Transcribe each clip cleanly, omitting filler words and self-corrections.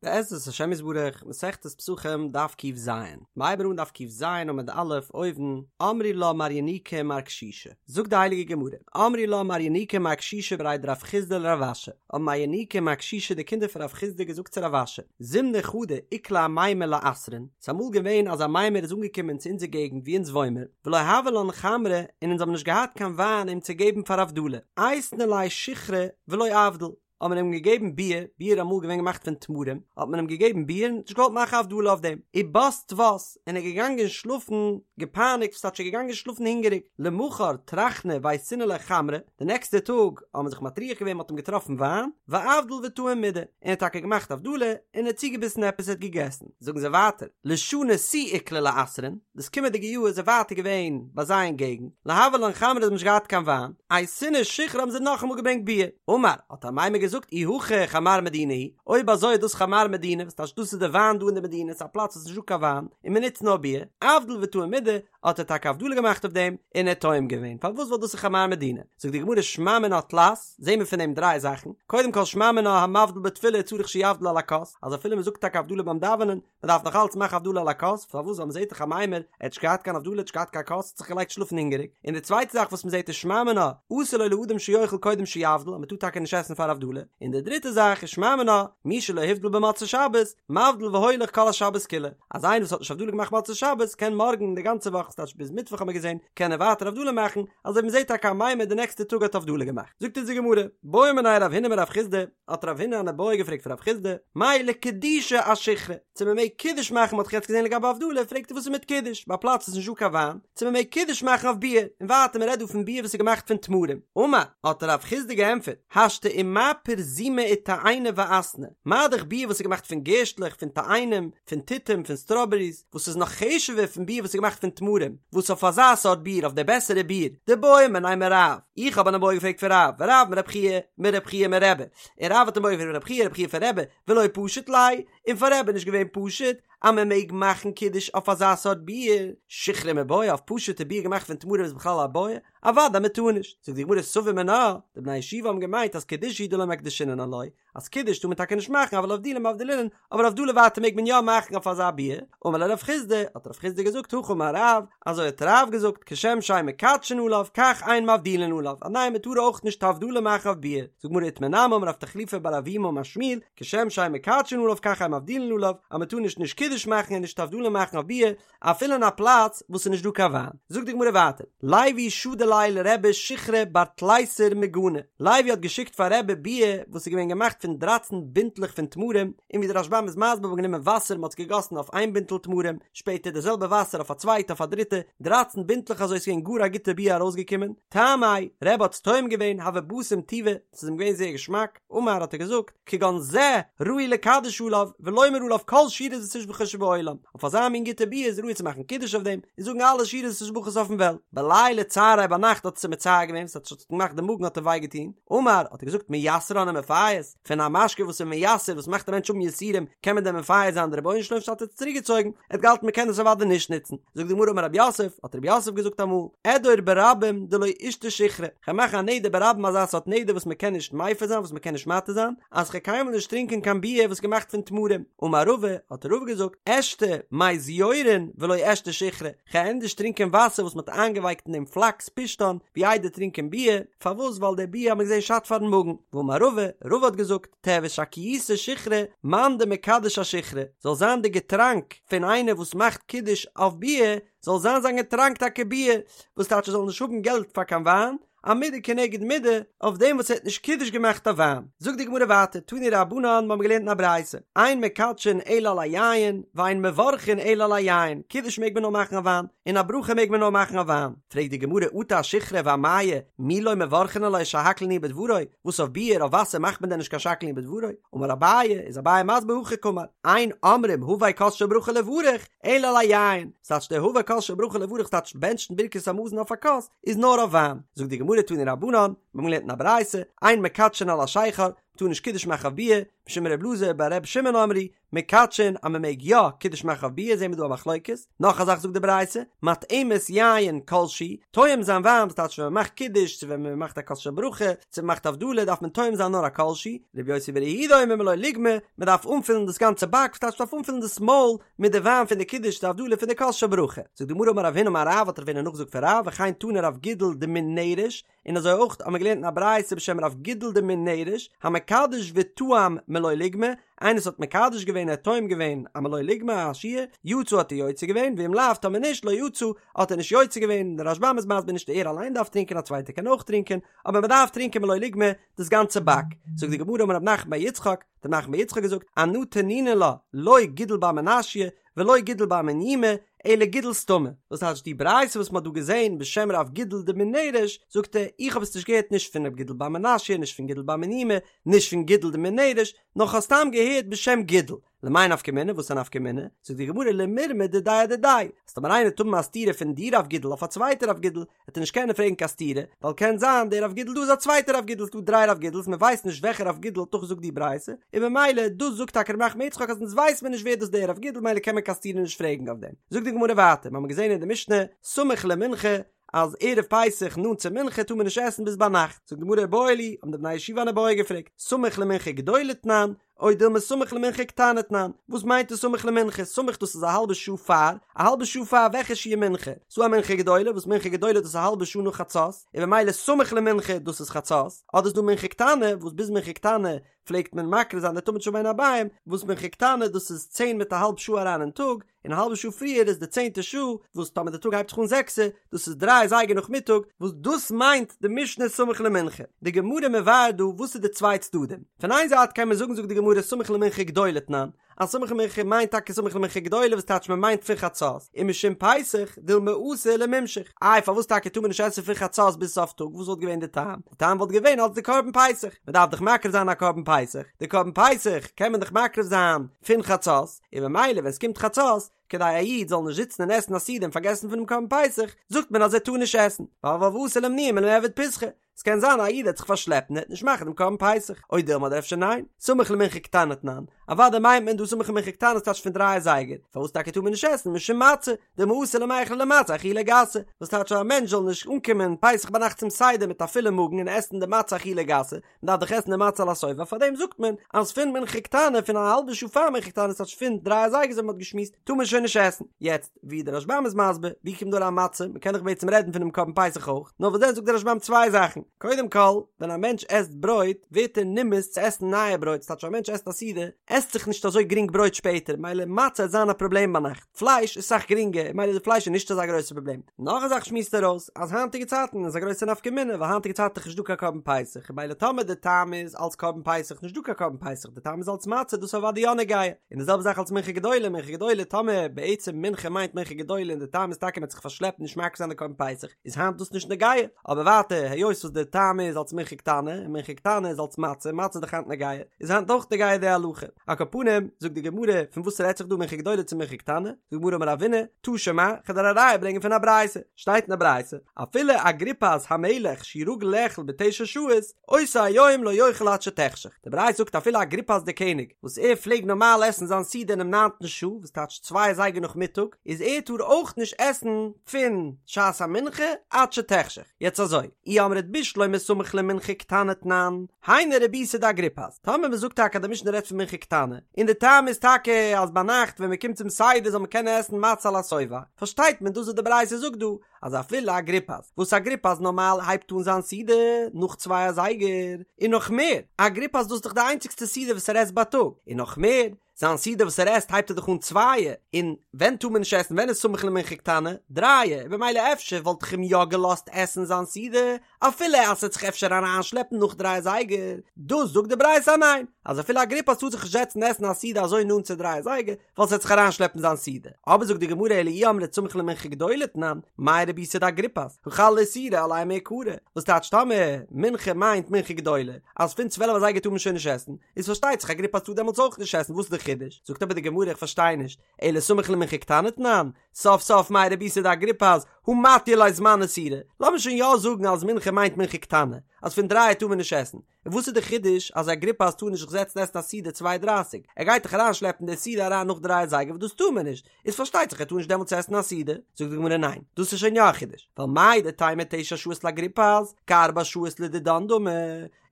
בעזרת השם יתברך, מסכת פסחים, דף ק"ז. מ'הייבן אן דף ק"ז עמוד א', אויבן, אמרי לה מר ינוקא ומר קשישא. זאגט די הייליגע גמרא, אמרי לה מר ינוקא ומר קשישא בריה דרב חסדא לרב אשי. האבן מר ינוקא און מר קשישא די קינדער פון רב חסדא געזאגט צו רב אשי, זימנא חדא איקלע אמימר לאתרין, ס'איז אמאל געווען אז אמימר איז אנגעקומען צו אונזער געגנט וואו אונז וואוינמער, ולא הוה לן חמרא און אונז האבן נישט געהאט קיין וויין אים צו געבן פאר הבדלה, אייתינן ליה שיכרא ולא אבדיל. האט מען אים געגעבן ביר, ביר איז אמאל געווען געמאכט פון תמרים, האט מען אים געגעבן ביר און נישט געוואלט מאכן הבדלה אויף דעם, ובת טוות, און ער איז געגאנגען שלאפן געפייניגט, וואס טייטש ער איז געגאנגען שלאפן הונגעריג, למחר טרחנא ואייתינן ליה חמרא, די נעקסטע טאג האט מען זיך מטריח געווען מען האט אים געטראפן וויין, ואבדיל וטעים מידי, און ער האט טאקע געמאכט הבדלה, און ער האט צוגעביסן עפעס ער האט געגעסן. זאגן זיי ווייטער, לשנה תו איקלע לאתרין, דאס קומענדיגע יאר איז ער ווייטער געווען ביי זיי אין געגנט, לא הוה לן חמרא זיי האבן נישט געהאט קיין וויין, אייתינן שיכרא האבן זיי נאכאמאל געברענגט ביר, אמר, האט אמימר געזאגט אי הכי חמר מדינה הוא, אויב אזוי איז דאס חמר מדינה, וואס טייטש דאס איז די וויין דא אין די מדינה, ס'איז א פלאץ וואס איז נישט דא קיין וויין, און מען נוצט נאר ביר, אבדיל וטעים מידי, האט ער טאקע הבדלה געמאכט אויף דעם, און ער האט טועם געווען, פארוואס ווייל דאס איז חמר מדינה? זאגט די גמרא שמע מינה תלת, זעהן מיר פון דעם דריי זאכן, קודם כל שמע מינה המבדיל בתפילה צריך שיבדיל על הכוס, אז אפילו מען זאגט טאקע הבדלה ביים דאווענען, מען דארף נאך אלץ מאכן הבדלה על הכוס, פארוואס ווייל מען זעט דאך אמימר, ער האט נישט געהאט קיין הבדלה, ער האט נישט געהאט קיין כוס, האט זיך געלייגט שלאפן הונגעריג, און די צווייטע זאך וואס מען זעט איז שמע מינה, אסור לו לאדם שיאכל קודם שיבדיל, אז מען טאר טאקע נישט עסן פאר הבדלה, און די דריטע זאך איז שמע מינה, מי שלא הבדיל במוצאי שבת, מבדיל והולך כל השבת כולה, אז איינער וואס האט נישט הבדלה געמאכט מוצאי שבת, קען מארגן די גאנצע וואך, ס'טייטש ביז מיטוואך האט מען געזען, קען ער ווייטער הבדלה מאכן, אזוי ווי מען זעט טאקע אמימר די נעקסטע טאג האט הבדלה געמאכט. זאגט אונז די גמרא, בעא מיניה רב הונא מרב חסדא, האט רב הונא אן איבעיא געפרעגט פון רב חסדא, מהו לקדושי אשיכרא, צו מען מעג קידוש מאכן, מען האט דאך יעצט געזען לגבי הבדלה, פרעגט ער וואס איז מיט קידוש, ביי א פלאץ וואס איז נישט דא קיין וויין, צו מען מעג קידוש מאכן אויף ביר, און ווייטער מען רעדט דא פון ביר וואס איז געמאכט פון תמרים, אמר, האט רב חסדא געענטפערט, השתא ומה פרזומא ותאיני ואסני, מה דאך ביר וואס איז געמאכט פון גערשטלעך, פון תאנים, פון תותים, פון סטראבעריס, וואס איז נאך חשוב'ער פון ביר וואס איז געמאכט פון תמרים, וואס אויף אזא סארט ביר, אויף די בעסערע ביר, דבעאי מיניה מרב, איך האב אן איבעיא געפרעגט פון רב, ורב מרב חייא, מרב חייא מרבי, און רב האט אן איבעיא געפרעגט פון רב חייא, רב חייא פון רבי, ולא פשיט ליה, און פאר רבי איז נישט געווען פשוט אז מען מעג מאכן קידוש אויף אזא סארט ביר, שיכרא מיבעיא אויף פשוט'ע ביר געמאכט פון תמרים איז בכלל א בעיא? אוודאי מען טאר נישט, זאגט די גמרא סבור מינה, די בני הישיבה האבן געמיינט אז קידושא הוא דלא מקדשינן עילויה, אז קידוש טאר מען טאקע נישט מאכן אבל הבדולי מבדלינן, אבער הבדלה ווייטער מעג מען יא מאכן אויף אזא ביר, אמר ליה רב חסדא, האט רב חסדא געזאגט הכי אמר רב, אזוי האט רב געזאגט, כשם שאין מקדשין עליו כך אין מבדילין עליו, אז ניין מען טאר אויך נישט הבדלה מאכן אויף ביר, זאגט גמרא איתמר נמי אמר רב תחליפא בר אבימי אמר שמואל, כשם שאין מקדשין עליו כך אין מבדילין עליו, אז מען טאר נישט נישט קידוש מאכן און נישט הבדלה מאכן אויף ביר, אפילו אין א פלאץ וואס ס'איז נישט דא קיין וויין. זאגט די גמרא ווייטער, לוי שדר ליה לרבי שיכרא בר תליסר מגני, לוי האט געשיקט פאר רבי ביר וואס איז געווען געמאכט פון דרייצן בינטלעך פון תמרים, און ווי דער רשב"ם איז מסביר מ'האט גענומען וואסער מ'האט עס געגאסן אויף איין בינטל תמרים, שפעטער די זעלבע וואסער אויף א צווייטע אויף א דריטע, דרייצן בינטלעך אזוי איז געווען גאר א גוטע ביר ארויסגעקומען, טעמיה, רבי האט עס טועם געווען, הוה בסים טובא, ס'איז אים געווען זייער געשמאק. אמר האט ער געזאגט, כגון זה ראוי לקדש עליו ולומר עליו כל שירות ותשבחות שבעולם, אויף אזא מין גוטע ביר איז ראוי צו מאכן קידוש אויף דעם און זאגן אלע שירות ותשבחות אויפן וועלט. בליליא צעריה ביינאכט האט עס אים מצער געווען, עס האט געמאכט די מאגן האט אים וויי געטון, אמר האט ער געזאגט מייסרן ומפייס, פון א משקה וואס איז מייסר וואס מאכט א מענטש האבן יסורים קען מען דען מפייס זיין די רבונו של עולם האט ער עס צוריק געצויגן, ער האט געהאלטן מען קען עס אוודאי נישט נוצן. זאגט די גמרא אמר רב יוסף, האט רב יוסף געזאגט אמאל, אדור ברבים דלא אשתי שיכרא, כ'וועל מאכן א נדר ברבים אזא סארט נדר וואס מ'קען נישט מפר זיין וואס מ'קען נישט מתיר זיין, אז כ'וועל קיינמאל נישט טרינקען קיין ביר וואס איז געמאכט פון תמרים. אמר רבא, האט רבא געזאגט, אשתי מי זיורין ולא אשתי שיכרא, כ'וועל ענדערש טרינקען וואסער וואס מ'האט איינגעווייקט אין דעם פלאקס פשתן, ווי איידער טרינקען ביר, פארוואס ווייל דער ביר האט מען געזען שאדט פארן מאגן. ואמר רבא, רבא האט געזאגט, תיהוי שקייתא שיכרא, מאן דמקדש אשיכרא, זאל זיין די געטראנק פון איינער וואס מאכט קידוש אויף ביר, זאל זיין זיין געטראנק טאקע ביר, וואס טייטש ער זאל נישט האבן געלט פאר קיין וויין, א מידה כנגד מידה, אויף דעם וואס ער האט נישט קידוש געמאכט אויף וויין. זאגט די גמרא ווייטער, תנו רבנן, מיר האבן געלערנט אין א ברייתא, אין מקדשין אלא על היין, ואין מברכין אלא על היין, קידוש מעג מען נאר מאכן אויף וויין, און א ברכה מעג מען נאר מאכן אויף וויין. פרעגט די גמרא אטו אשיכרא ואמיא, מי לא מברכין עליה שהכל נהיה בדברו, וואס אויף ביר, אויף וואסער מאכט מען דען נישט קיין שהכל נהיה בדברו? אמר אביי, איז אביי מסביר הכי קאמר, אין אומרים הבא כוס של ברכה לברך, אלא על היין, ס'טייטש דער הבא כוס של ברכה לברך ס'טייטש בענטשן ברכת המזון אויף א כוס, איז נאר אויף וויין. זאגט די גמרא תנו רבנן, מיר האבן געלערנט אין א ברייתא, אין מקדשין על השכר, מ'טאר נישט קידוש מאכן אויף ביער, משום ר' אלעזר בר ר' שמעון אמרו, מקדשין אז מ'מעג יא קידוש מאכן אויף ביער זעהן מיר דא א מחלוקת, נאך א זאך זאגט די ברייתא, מטעימת יין כל שהוא, טועם זיין וויין וואס טייטש ווען מ'מאכט קידוש צו ווען מ'מאכט א כוס של ברכה, צו מ'מאכט הבדלה דארף מען טועם זיין נאר א כל שהוא, ר' יוסי בר' יהודה אומר מלא לוגמא, מ'דארף אנפילן דאס גאנצע באק וואס טייטש מ'דארף אנפילן דאס מויל מיט די וויין פון די קידוש די הבדלה פון די כוס של ברכה. זאגט די גמרא אמר רב הונא אמר רב האט רב הונא נאכגעזאגט פון רב וכן תני רב גידל דמן נרש, און אזוי אויך האט מען געלערנט אין א ברייתא בשם רב גידל דמן נרש, המקדש וטעם מלא לוגמא, איינער וואס האט מקדש געווען ער האט טועם געווען א מלא לוגמא א שיעור, יצא האט ער יוצא געווען, ואם לאו טאמער נישט לא יצא האט ער נישט יוצא געווען, דער רשב"ם איז מסביר נישט ער אליין דארף טרינקען א צווייטער קען אויך טרינקען, אבער מען דארף טרינקען מלא לוגמא דאס גאנצע באק, זאגט די גמרא אמר רב נחמן בר יצחק, האט רב נחמן בר יצחק געזאגט, אנא תנינא לה, לא גידול בר מנשיא, ולא גידול בר מניומי, אלא גידול סתמא. וואס טייטש די ברייתא וואס מ'האט דא געזען בשם רב גידל דמן נרש, זאגט ער, איך האב עס נישט געהערט נישט פון רב גידל בר מנשיא, נישט פון גידול בר מניומי, נישט פון גידל דמן נרש, נאר כ'האב סתם געהערט בשם גידל. למאי נפקא מינה, וואס איז א נפקא מינה? זאגט די גמרא למירמא דידיה אדידיה, אז טאמער איינער וועט האבן א סתירה פון די רב גידל אויף א צווייטע רב גידל, וועט ער נישט קענען פרעגן קיין סתירה, ווייל קען זיין דער רב גידל דא איז א צווייטער רב גידל, ס'דא דריי רב גידל'ס מען ווייסט נישט וועלכער רב גידל האט נאכגעזאגט די ברייתא, און במילא דאס זאגט טאקע רב נחמן בר יצחק אז אונז ווייסט מען נישט ווער דאס דער רב גידל מילא קען מען קיין סתירה נישט פרעגן אויף דעם. זאגט די גמרא ווייטער, מ'האמיר געזען אין די משנה, סמוך למנחה, אז ערב פסח נאנט צו מנחה טאר מען נישט עסן ביז ביינאכט, זאגט די גמרא איבעיא להו, האבן די בני ישיבה אן איבעיא געפרעגט, סמוך למנחה גדולה תנן, או דילמא סמוך למנחה קטנה תנן, וואס מיינט דאס סמוך למנחה? סמוך דאס איז א האלבע שעה פאר, א האלבע שעה פאר וועלכע שיעור מנחה? ס'דא א מנחה גדולה, וואס מנחה גדולה דאס איז א האלבע שעה נאך חצות, און במילא סמוך למנחה דאס איז חצות, אדער איז דא מנחה קטנה, וואס ביז מנחה קטנה פלעגט מען מקריב זיין די תמיד של בין הערביים, וואס מנחה קטנה דאס איז צען מיט א האלב שעה אריין אין טאג, און א האלבע שעה פריער איז די צענטע שעה, וואס טאמער די טאג הייבט זיך אן זעקסע, דאס איז דריי אזייגער נאכמיטאג, וואס דאס מיינט די משנה סמוך למנחה. די גמרא מבאר דא וואס איז די צוויי צדדים. פון איין זייט קען מען זאגן זאגט די גמרא סמוך למנחה גדולה תנן, אז סמוך למנחה מיינט טאקע סמוך למנחה גדולה וואס טייטש מען מיינט פון חצות, ומשום פסח דילמא אתי למימשך. איי פארוואס טאקע טאר מען נישט עסן פון חצות ביז סוף טאג, וואס וואלט געווען די טעם? די טעם וואלט געווען אלס די קרבן פסח, מען דארף דאך מקריב זיין א קרבן פסח, די קרבן פסח קען מען דאך מקריב זיין פון חצות, און ממילא ווען ס'קומט חצות, כדי א איד זאל נישט זיצן און עסן א סעודה און פארגעסן פונעם קרבן פסח, זאגט מען אז ער טאר נישט עסן, ווייל ואתי לאימנועי מלמעבד פסחא, ס'קען זיין א איד וועט זיך פארשלעפן און ער וועט נישט מאכן דעם קרבן פסח, או דילמא אדער אפשר ניין, סמוך למנחה קטנה תנן, אוודאי מיינט מען דא סמוך למנחה קטנה ס'טייטש פון דריי אזייגער, פארוואס טאקע טאר מען נישט עסן משום מצה, דילמא אתי למיכלה למצה אכילה גסה, וואס טייטש אז א מענטש זאל נישט אנקומען פסח ביינאכט צום סדר מיט א פולע מאגן און עסן די מצה אכילה גסה, מ'דארף דאך עסן די מצה על השובע, פארדעם זאגט מען אז פון מנחה קטנה פון א האלבע שעה פאר מנחה קטנה ס'טייטש פון דריי אזייגער אזוי ווי מ'האט געשמועסט טאר מען שוין נישט עסן. יעצט ווי דער רשב"ם איז מסביר ווי קומט דא אריין מצה, מ'קען דאך בעצם רעדן פונעם קרבן פסח אויך, נאר וואס דען זאגט דער רשב"ם צוויי זאכן, קודם כל ווען א מענטש עסט ברויט ווערט ער נמאס צו עסן נייע ברויט, ס'טייטש א מענטש עסט א סעודה עסט זיך נישט אזוי גרינג ברויט שפעטער מילא מצה וועט זיין א פראבלעם ביינאכט. פלייש איז סאך גרינגער, מילא די פלייש איז נישט אזא גרויסע פראבלעם. נאך א זאך שמועסט ער אויס, אז היינטיגע צייטן איז א גרויסע נפקא מינה, ווייל היינטיגע צייטן איז נישט דא קיין קרבן פסח, מילא טאמער די טעם איז אלס קרבן פסח נישט דא קיין קרבן פסח, די טעם איז אלס מצה, דאס איז אוודאי יא נוגע. און די זעלבע זאך אלס מנחה גדולה, מנחה גדולה טאמער בעצם מנחה מיינט מנחה גדולה און די טעם איז טאקע מען האט זיך פארשלעפט נישט מקריב זיין די קרבן פסח, איז היינט דאס נישט נוגע. אבער ווייטער היות וואס די טעם איז אלס מנחה קטנה, און מנחה קטנה איז אלס מצה, מצה איז דאך היינט נוגע, איז היינט אויך נוגע די הלכה. על כל פנים, זאגט די גמרא, פון וואס רעדט זיך דא מנחה גדולה צו מנחה קטנה? זאגט די גמרא אמר רבינא, תא שמע, כ'וועל דיר א ראיה ברענגען פון א ברייתא. שטייט אין א ברייתא, אפילו אגריפס המלך שהוא רגיל לאכול בתשע שעות, אותו היום לא יאכל עד שתחשך. די ברייתא זאגט אפילו אגריפס דער קעניג, וואס ער פלעג נארמאל עסן זיין סעודה אינעם ניינטן שעה, וואס טייטש צוויי אזייגער נאכמיטאג, איז ער טאר אויך נישט עסן פון שעת המנחה עד שתחשך. יעצט אזוי, אי אמרת בשלמא סמוך למנחה קטנה תנן, היינו רבותא דאגריפס, טאמער מען זאגט טאקע אז די משנה רעדט פון מנחה קטנה, און די טעם איז טאקע אז ביינאכט ווען מען קומט צום סדר זאל מען קענען עסן מצה על השובע, פארשטייט מען דאס וואס די ברייתא זאגט דא, אז אפילו אגריפס, וואס אגריפס נארמאל הייבט אן זיין סעודה נאך צוויי אזייגער, און נאך מער, אגריפס דאס איז דאך די איינציגסטע סעודה וואס ער עסט בייטאג, און נאך מער, זיין סעודה וואס ער עסט הייבט ער דאך אן צווייע, און ווען טאר מען נישט עסן ווען איז סמוך למנחה קטנה? דרייע, און במילא אפשר וואלט איך אים יא געלאזט עסן זיין סעודה אפילו אז ס'וועט זיך אפשר אריינשלעפן נאך דריי אזייגער, דאס זאגט די ברייתא אז ניין, אז אפילו אגריפס טאר זיך נישט זעצן עסן א סעודה אזוי נאנט צו דריי אזייגער, ווייל ס'וועט זיך אריינשלעפן זיין סעודה. אבער זאגט די גמרא אלא אי אמרת סמוך למנחה גדולה תנן, מאי רבותא דאגריפס, הא חל איסורא עליה מעיקרא, וואס טייטש טאמער מנחה מיינט מנחה גדולה, אז פון צוועלף אזייגער טאר מען שוין נישט עסן, איז פארשטייט זיך אגריפס טאר דעמאלטס אויך נישט עסן, וואס איז די חידוש? זאגט אבער די גמרא איך פארשטיי נישט, אלא סמוך למנחה קטנה תנן, סוף סוף מאי רבותא דאגריפס הא מתיא ליה זמן איסורא, לאמיר שוין יא זאגן אז מנחה מיינט מנחה קטנה, אז פון דרייע טאר מען נישט עסן, און וואס איז די חידוש אז אגריפס טאר נישט זיך זעצן עסן א סעודה צוויי דרייסיג, ער גייט דאך אריין שלעפן די סעודה אריין נאך דריי אזייגער וואס דאס טאר מען נישט, איז פארשטייט זיך ער טאר נישט דעמאלטס עסן א סעודה, זאגט די גמרא ניין, דאס איז שוין יא א חידוש, ווייל מהו דתימא תשע שעות לאגריפס, כארבע שעות לדידן דמי,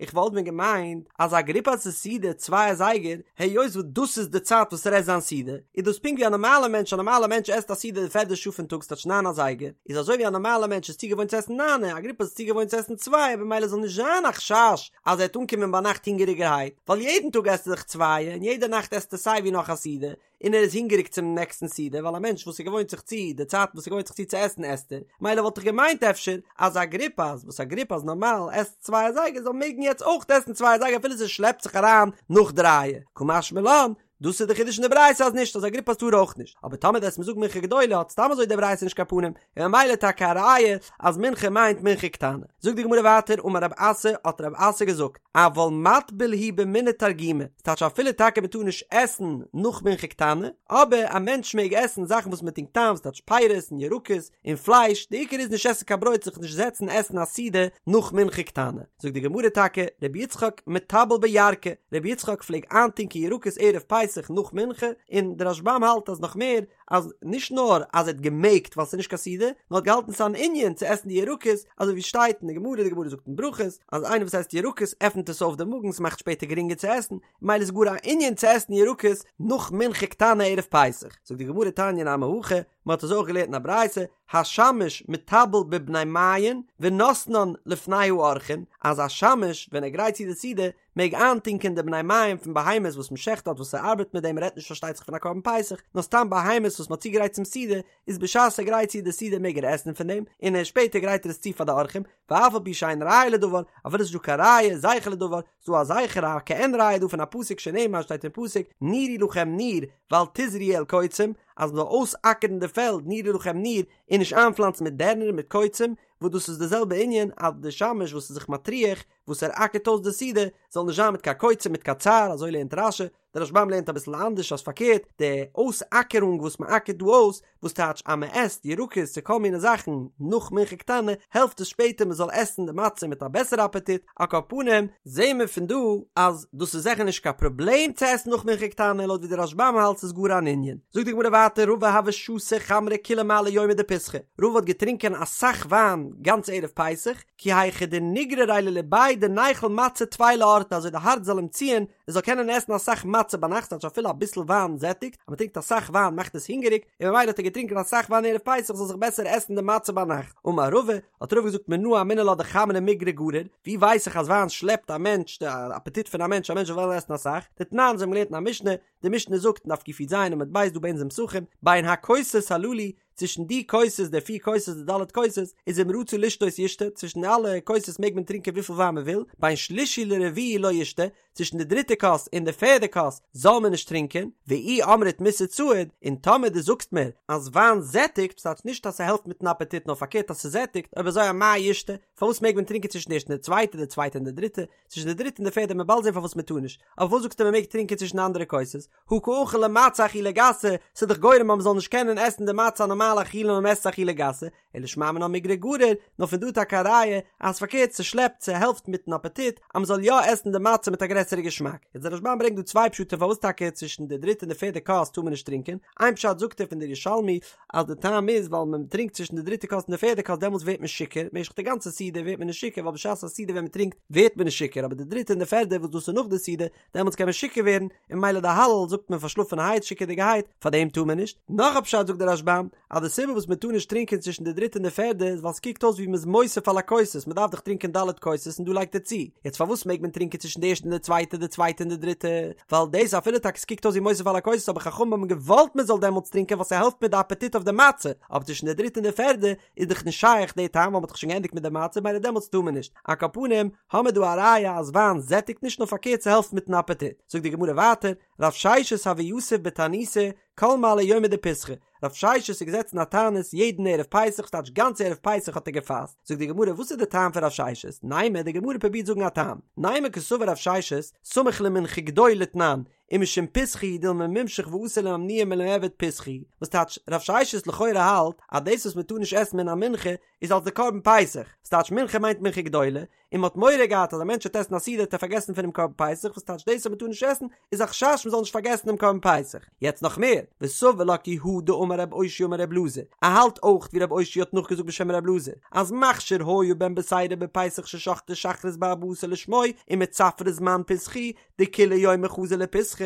איך וואלט ווען געמיינט אז אגריפס'ס סעודה צוויי אזייגער, היות וואס דאס איז די צייט וואס ער עסט זיין סעודה, איז דאס פונקט ווי א נארמאלע מענטש, א נארמאלע מענטש עסט א סעודה די פערדע שעה פון טאג ס'טייטש ניין אזייגער, איז אזוי ווי א נארמאלע מענטש איז צוגעוואוינט צו עסן ניינע, אגריפס איז צוגעוואוינט צו עסן צווייע במילא זאל נישט זיין א חשש אז ער וועט אנקומען ביינאכט הונגעריגערהייט, ווייל יעדן טאג עסט ער דאך צווייע און יעדע נאכט עסט ער סיי ווי נאך א סעודה, און ער איז הונגעריג צום נעקסטן סעודה, ווייל א מענטש וואס ער געוואוינט זיך צו די צייטן וואס ער געוואוינט זיך צו צו עסן עסט ער, מילא וואלט איך געמיינט אפשר אז אגריפס וואס אגריפס נארמאל עסט צוויי אזייגער זאל מעגן יעצט אויך עסן צוויי אזייגער אפילו ס'שלעפט זיך אריין נאך דרייע, קא משמע לן, דאס איז די חידוש אין די ברייתא אז נישט אז אגריפס טאר אויך נישט, אבער טאמער וועסט מיר זאגן מנחה גדולה האט סתם אזוי די ברייתא נישט קיין פנים, און ממילא טאקע א ראיה אז מנחה מיינט מנחה קטנה. זאגט די גמרא ווייטער אמר רב אסי האט רב אסי געזאגט אבל מטביל הוא במיני תרגימא, ס'טייטש אפילו טאקע מ'טאר נישט עסן נאך מנחה קטנה, אבער א מענטש מעג עסן זאכן וואס מ'טונקט איין, ס'טייטש פירות און ירקות און פלייש, די עיקר איז נישט עסן קיין ברויט זיך נישט זעצן עסן א סעודה נאך מנחה קטנה. זאגט די גמרא טאקע רבי יצחק מטבל בירקא, רבי יצחק פלעג איינטונקען ירקות ערב פסח נאך מנחה, און די רשב"ם האלט אז נאך מער, אז נישט נאר אז ער האט געמעגט ווייל ס'איז נישט קיין סעודה, נאר האט געהאלטן ס'איז אן ענין צו עסן די ירקות, אזוי ווי שטייט אין די גמרא, די גמרא זאגט אין ברכות, אז איינער וואס עסט ירקות עפנט עס אויף די מאגן, ס'מאכט שפעטער גרינגער צו עסן, ממילא איז גאר א ענין צו עסן ירקות נאך מנחה קטנה ערב פסח. זאגט די גמרא תניא נמי הכי, מ'האט עס אויך געלערנט אין א ברייתא, השמש מטבל בבני מעיין ונותנן לפני האורחין, אז א שמש ווען ער גרייט צו די סעודה מעג איינטונקען די בני מעיים פון בהמות וואס מען שעכט דארט וואס ער ארבעט מיט דעם מ'רעדט נישט פארשטייט זיך פון א קרבן פסח נאר סתם בהמות וואס מ'האט צוגעגרייט צום סעודה איז בשעת ער גרייט צו די סעודה מעג ער עסן פון דעם און ער שפעטער גרייט ער עס צו פאר די אורחים ואף על פי שאין ראיה לדבר אפילו ס'איז נישט דא קיין ראיה זכר לדבר ס'דא א זכר א כעין ראיה דא פון א פסוק שנאמר שטייט אין פסוק נירו לכם ניר ואל תזרעו אל קוצים אז מ'זאל אויסאקערן די פעלד נירו לכם ניר און נישט איינפלאנצן מיט דערנער מיט קוצים וואס דאס איז די זעלבע ענין אז די שמש וואס איז זיך מטריח וואס ער אקערט אויס די סעודה זאל נישט זיין מיט קיין קוצים מיט קיין צער, אזוי לערנט רש"י, דער רשב"ם לערנט אביסל אנדערש אז פארקערט, די אויסאקערונג וואס מען אקערט דא אויס, וואס טייטש אז מען עסט ירקות צו כל מיני זאכן נאך מנחה קטנה, העלפט עס שפעטער מען זאל עסן די מצה מיט א בעסערע אפעטיט, על כל פנים, זעהן מיר פון דא אז דאס איז זיכער נישט קיין פראבלעם צו עסן נאך מנחה קטנה, לויט ווי דער רשב"ם האלט ס'איז גאר אן ענין. זאגט די גמרא ווייטער רבא הוה שתי חמרא כולי מעלי יומא דפסחא, רבא האט געטרינקען אסאך וויין גאנץ ערב פסח, כי היכי דניגרריה לליביה דניכול מצה טפי לאורתא אזוי די הארץ זאל אים ציען ער זאל קענען עסן אסאך מצה ביינאכט ס'טייטש אפילו אביסל וויין זעטיגט אז מ'טרינקט אסאך וויין מאכט עס הונגעריג און ממילא האט ער געטרינקען אסאך וויין ערב פסח זאל זיך בעסער עסן די מצה ביינאכט אמר רבא האט רבא געזאגט מנא אמינא לה דחמרא מיגרא גריר ווי ווייס איך אז וויין שלעפט א מענטש די אפעטיט פון א מענטש א מענטש זאל וועלן עסן אסאך דתנן אזוי האבן מיר געלערנט אין א משנה די משנה זאגט אין דף קי"ז עמוד ב' דא ביי אונז אין פסחים בין הכוסות הללו צווישן די כוסות, די פיר כוסות, די ד' כוסות, איז אם רצה לשתות ישתה, צווישן אלע כוסות מעג מען טרינקען וויפיל וויין מען וויל, בין שלישי לרביעי לא ישתה, צווישן די דריטע כוס און די פערדע כוס זאל מען נישט טרינקען, ואי אמרת מסעד סעיד, און טאמער דו זאגסט מיר אז וויין זעטיגט, ס'טייטש נישט אז ס'העלפט מיטן אפעטיט נאר פארקערט אז ס'זעטיגט, אויב אזוי אמאי ישתה, פארוואס מעג מען טרינקען צווישן די ערשטע און די צווייטע, די צווייטע און די דריטע, צווישן די דריטע און די פערדע, מ'עט באלד זען פארוואס מען טאר נישט, אבער וואס זאגסטו מען מעג טרינקען צווישן די אנדערע כוסות? הא קא אכיל ליה מצה אכילה גסה, ס'איז דאך גורם אז מ'זאל נישט קענען עסן די מצה א נארמאלע אכילה נאר מ'עסט אכילה גסה, אלא שמע מינה מיגרא גריר, נאר פון דא טאקע א ראיה אז פארקערט ס'שלעפט ס'העלפט מיטן אפעטיט אז מ'זאל יא עסן די מצה מיט א גרעסערע געשמאק. יעצט דער רשב"ם ברענגט דא צוויי פשטים פארוואס טאקע צווישן די דריטע און די פערדע כוס טאר מען נישט טרינקען, איין פשט זאגט ער פון דער ירושלמי אז די טעם איז ווייל מען טרינקט צווישן די דריטע כוס און די פערדע כוס דעמאלטס ווערט מען שיכור, משך די גאנצע סעודה ווערט מען נישט שיכור ווייל בשעת א סעודה ווען מ'טרינקט ווערט מען נישט שיכור אבער די דריטע און די פערדע וואס דאס איז נאך די סעודה דעמאלטס קען מען שיכור ווערן, און ממילא די הלל זאגט מען פארשלאפענערהייט שיכור'דיגערהייט, פאר דעם טאר מען נישט. נאך א פשט זאגט דער רשב"ם, אז די סיבה וואס מען טאר נישט טרינקען צווישן די דריטע און די פערדע איז ווייל ס'קוקט אויס ווי מ'איז מוסיף על הכוסות, מ'דארף דאך טרינקען ד' כוסות און דא לייגט ער צו, יעצט פארוואס מעג מען טרינקען צווישן די ערשטע און די צווייטע, די צווייטע און די דריטע, ווייל דאס אפילו טאקע ס'קוקט אויס ווי מוסיף על הכוסות אבער חכמים האבן געוואלט מען זאל דעמאלטס טרינקען ווייל ס'העלפט מיט די אפעטיט אויף די מצה, אבער צווישן די דריטע און די פערדע איז דאך נישט שייך די טעם ווייל מ'האט דאך שוין געענדיגט מיט די מצה ממילא דעמאלטס טאר מען נישט. על כל פנים, האמיר דא א ראיה אז וויין זעטיגט נישט נאר פארקערט ס'העלפט מיטן אפעטיט. זאגט די גמרא ווייטער, רב ששת הוה יתיב בתעניתא כל מעלי יומא דפסחא, רב ששת איז געזעצן א תענית יעדן ערב פסח ס'טייטש גאנץ ערב פסח האט ער געפאסט, זאגט די גמרא וואס איז די טעם פון רב ששת, נימא די גמרא פרובירט זאגן א טעם, נימא קסבר רב ששת סמוך למנחה גדולה תנן, ומשום פסחא הוא דילמא מימשך ואתי לאימנועי מלמעבד פסחא הוא, וואס טייטש רב ששת לכאורה האלט אז דאס וואס מען טאר נישט עסן מן המנחה איז אלס די קרבן פסח, וואס טייטש מנחה מיינט מנחה גדולה, און מען האט מורא געהאט אז א מענטש וועט עסן א סעודה וועט ער פארגעסן פונעם קרבן פסח, וואס טייטש דאס אז מען טאר נישט עסן איז א חשש מען זאל נישט פארגעסן דעם קרבן פסח. יעצט נאך מער, וסבר לה כי הא דאמר רב אושעיא אמר רב אלעזר, ער האלט אויך ווי רב אושעיא האט נאכגעזאגט בשם רב אלעזר, אז מכשיר היה בן בתירא בפסח ששחטו שחרית בארבעה עשר לשמו ומצפרא זמן פסחא הוא דכולי יומא חזי לפיסחא,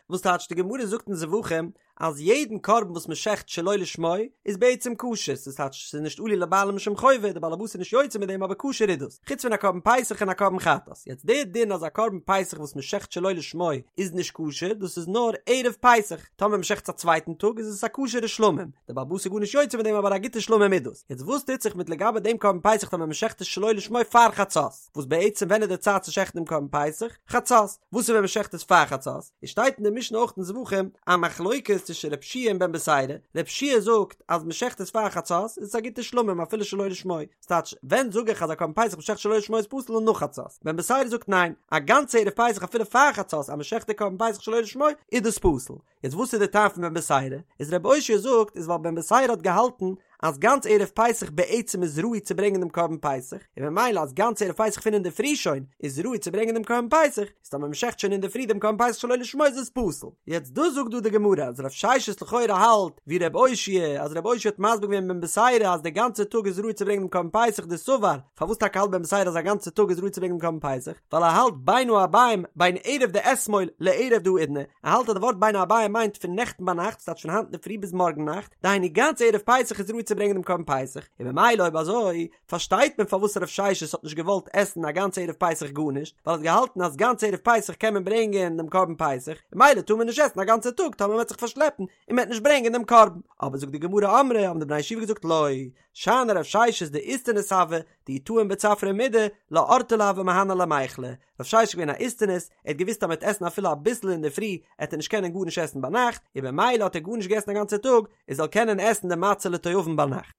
וואס טייטש די גמרא זאגט אין זבחים אז יעדן קרבן וואס מען שעכט שלא לשמו איז בעצם כשר, ס'איז טייטש ס'איז נישט עלו לבעלים משום חובה, די בעל הבית איז נישט יוצא מיט דעם אבער כשר איז דאס, חוץ פון א קרבן פסח און א קרבן חטאת, יעצט דער דין אז א קרבן פסח וואס מען שעכט שלא לשמו איז נישט כשר דאס איז נאר ערב פסח, טאמער מען שעכט עס א צווייטן טאג איז עס א כשר'ע שלמים, די בעל הבית איז גארנישט יוצא מיט דעם אבער א גוטע שלמים איז דאס, יעצט וואס טוט זיך מיט לגבי דעם קרבן פסח טאמער מען שעכט עס שלא לשמו פאר חצות, וואס בעצם ווען איז די צייט צו שעכטן דעם קרבן פסח? חצות, וואס איז ווען מען שעכט עס פאר חצות? עס שטייט אין די משנה אויך אין זבחים א מחלוקת צווישן רב שיע און בן בתירא, רב שיע זאגט אז מען שעכט עס פאר חצות איז עס א גוטע שלמים אפילו שלא לשמו, ס'טייטש ווען זאג איך אז א קרבן פסח מען שעכט שלא לשמו איז פסול און נאך חצות, בן בתירא זאגט ניין, א גאנצע ערב פסח אפילו פאר חצות אז מען שעכט די קרבן פסח שלא לשמו איז דאס פסול, יעצט וואס איז די טעם פון בן בתירא? איז רב אושעיא זאגט איז ווייל בן בתירא האט געהאלטן אז גאנץ ערב פסח בעצם איז ראוי צו ברענגען דעם קרבן פסח, און ממילא אז גאנץ ערב פסח פון אינדערפרי שוין איז ראוי צו ברענגען דעם קרבן פסח, איז טאמער מ'שעכט שוין אינדערפרי דעם קרבן פסח שלא לשמו איז עס פסול. יעצט דאס זאגט דא די גמרא אז רב ששת לכאורה האלט ווי רב אושעיא אז רב אושעיא האט מסביר געווען בן בתירא אז די גאנצע טאג איז ראוי צו ברענגען דעם קרבן פסח דסבר, פארוואס טאקע האלט בן בתירא אז א גאנצע טאג איז ראוי צו ברענגען דעם קרבן פסח? ווייל ער האלט בין הערבים בין ערב דאתמול לערב דהאידנא, ער האלט אז די ווארט בין הערבים מיינט פון נעכטן ביינאכט, ס'טייטש פון היינט אינדערפרי ביז מארגן נאכט, דהיינו גאנץ ערב פסח איז ראוי צו ברענגען דעם קרבן פסח, און ממילא אויב אזוי פארשטייט מען פארוואס רב ששת האט נישט געוואלט עסן א גאנץ ערב פסח גארנישט, ווייל ער האט געהאלטן אז גאנץ ערב פסח קען מען ברענגען דעם קרבן פסח, און ממילא טאר מען נישט עסן א גאנצע טאג טאמער מען וועט זיך פארשלעפן און מען וועט נישט ברענגען דעם קרבן. אבער זאגט די גמרא אמרי האבן די בני ישיבה געזאגט לא, שאני רב ששת דאיסטניס הוה, דאי טעים בצפרא מידי, לא אורתא לא הוה מהני למיכלה, רב ששת איז געווען א איסטניס, ער האט געוואוסט אז מען וועט עסן אפילו אביסל אינדערפרי, עט ער נישט קענען גארנישט עסן ביינאכט, און במילא האט ער גארנישט געעסן א גאנצע טאג, ער זאל קענען עסן די מצה לתיאבון ביינאכט.